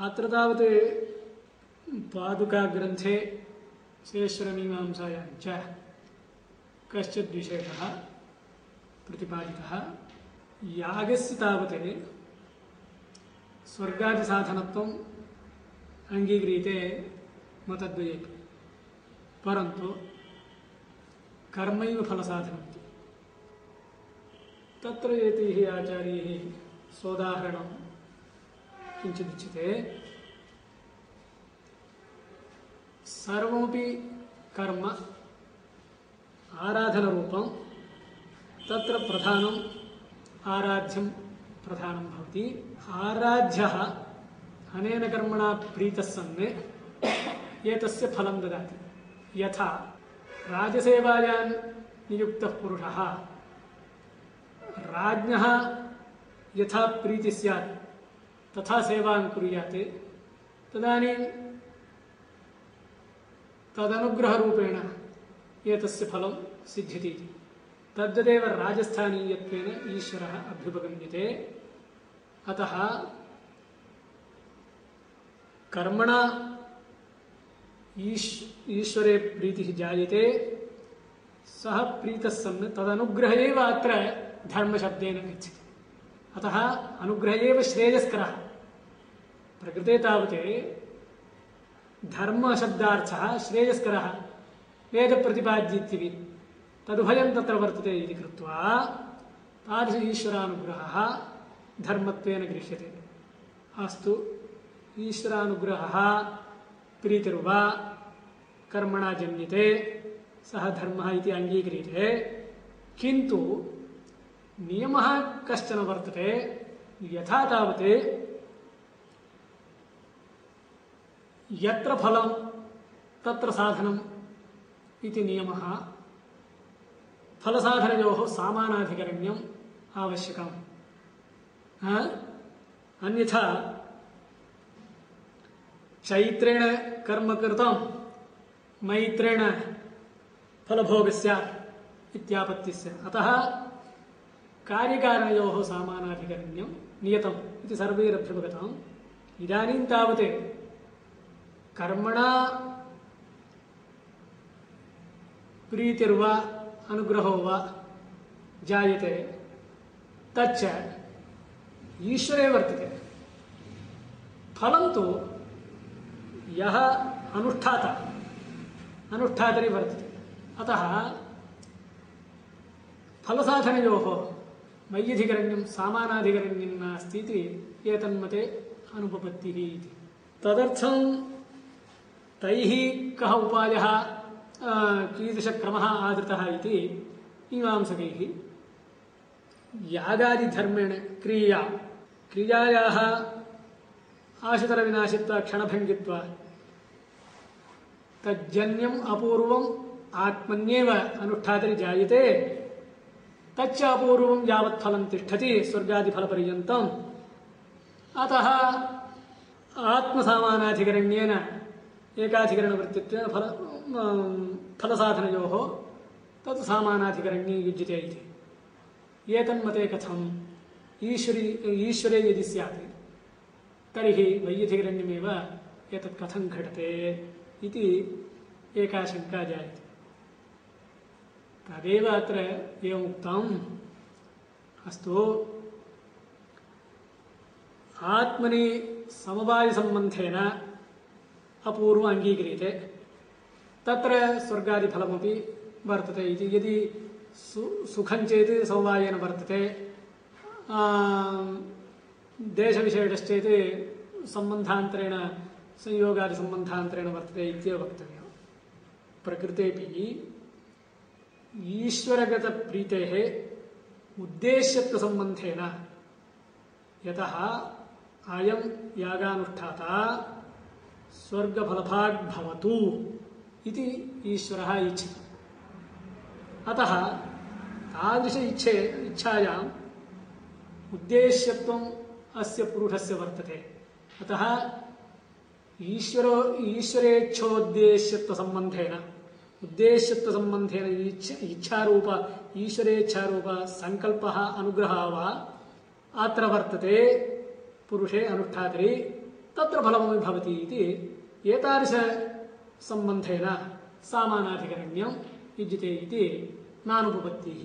अत्र तावत् पादुकाग्रन्थे शेषरमीमांसायां च कश्चित् विशेषः प्रतिपादितः। यागस्य तावत् स्वर्गादिसाधनत्वम् अङ्गीक्रियते मतद्वयेपि, परन्तु कर्मैव फलसाधनमिति। तत्र एतैः आचार्यैः सोदाहरणं किञ्चिदुच्यते। सर्वमपि कर्म आराधनरूपं, तत्र प्रधानम् आराध्यं प्रधानं भवति। आराध्यः अनेन कर्मणा प्रीतः सन् एतस्य फलं ददाति। यथा राजसेवायां नियुक्तः पुरुषः राज्ञः यथा प्रीतिः स्यात् तथा सेवां कुर्यात्, तदानीं तदनुग्रहरूपेण एतस्य फलं सिद्ध्यति। तद्वदेव राजस्थानीयत्वेन ईश्वरः अभ्युपगम्यते। अतः कर्मणा ईश्वरे प्रीतिः जायते, सः प्रीतः सन् तदनुग्रह एव अत्र धर्मशब्देन गच्छति। अतः अनुग्रह एव श्रेयस्करः। प्रकृते तावत् धर्मशब्दार्थः श्रेयस्करः वेदप्रतिपाद्येत्यपि तदुभयं तत्र वर्तते इति कृत्वा तादृश ईश्वरानुग्रहः धर्मत्वेन गृह्यते। अस्तु, ईश्वरानुग्रहः प्रीतिर्वा कर्मणा जन्यते, सः धर्मः इति अङ्गीक्रियते। किन्तु नियमः कश्चन वर्तते। यथा तावत् यत्र फलं तत्र साधनम् इति नियमः, फलसाधनयोः सामानाधिकरण्यम् आवश्यकम्। अन्यथा चैत्रेण कर्म कृतं मैत्रेण फलभोगस्य इत्यापत्तिस्य। अतः कार्यकारणयोः सामानाधिकरण्यं नियतम् इति सर्वैरभ्युपगतम्। इदानीं तावत् कर्मणा प्रीतिर्वा अनुग्रहो वा जायते, तच्च ईश्वरे वर्तते। फलं तु यः अनुष्ठातरि वर्तते। अतः फलसाधनयोः मय्यधिकरण्यं सामानाधिकरण्यं नास्ति इति एतन्मते अनुपपत्तिः इति। तदर्थं तैः कः उपायः, कीदृशक्रमः आदृतः इति मीमांसकैः यागादिधर्मेण क्रियायाः आशुतरविनाशित्वा क्षणभङ्गित्वा तज्जन्यम् अपूर्वम् आत्मन्येव अनुष्ठातरि जायते, तच्च अपूर्वं यावत् फलं तिष्ठति स्वर्गादिफलपर्यन्तम्। अतः आत्मसामानाधिकरण्येन एकाधिकरणवृत्तित्वेन फलसाधनयोः तत् सामानाधिकरण्ये युज्यते इति। एतन्मते कथम्? ईश्वरे यदि स्यात् तर्हि वैयधिकरण्यमेव एतत् कथं घटते इति एका शङ्का जायते। तदेव अत्र एवमुक्तम्। अस्तु, आत्मनि समवायसम्बन्धेन अपूर्व अङ्गीक्रियते, तत्र स्वर्गादिफलमपि वर्तते इति। यदि सुखं चेत् समवायेन वर्तते, देशविशेषश्चेत् सम्बन्धान्तरेण संयोगादिसम्बन्धान्तरेण वर्तते इत्येव वक्तव्यम्। प्रकृतेपि ईश्वरगतप्रीतेः उद्देश्यत्वसम्बन्धेन यतः अयं यागानुष्ठाता स्वर्गफलभाग् भवतु इति ईश्वरः इच्छति। अतः तादृश इच्छायाम् उद्देश्यत्वम् अस्य पुरुषस्य वर्तते। अतः ईश्वरेच्छोद्देश्यत्वसम्बन्धेन उद्देश्यत्वसम्बन्धेन इच्छारूप ईश्वरेच्छारूप संकल्पः अनुग्रहः वा अत्र वर्तते पुरुषे अनुष्ठातरि। तत्र फलमपि भवति इति एतादृशसम्बन्धेन सामानाधिकरण्यं युज्यते इति नानुपपत्तिः।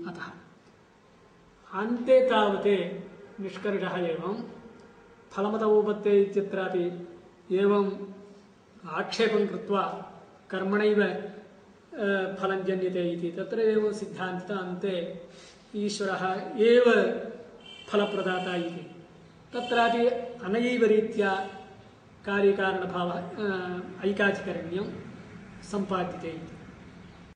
अतः अन्ते तावत् निष्कर्षः एवं फलमत उपपत्ते इत्यत्रापि एवं आक्षेपं कृत्वा कर्मणैव फलं जन्यते इति तत्र एव सिद्धान्तः अन्ते ईश्वरः एव फलप्रदाता इति तत्रापि अनयैव रीत्या कार्यकारणभावः ऐकाधिकरण्यं सम्पाद्यते इति।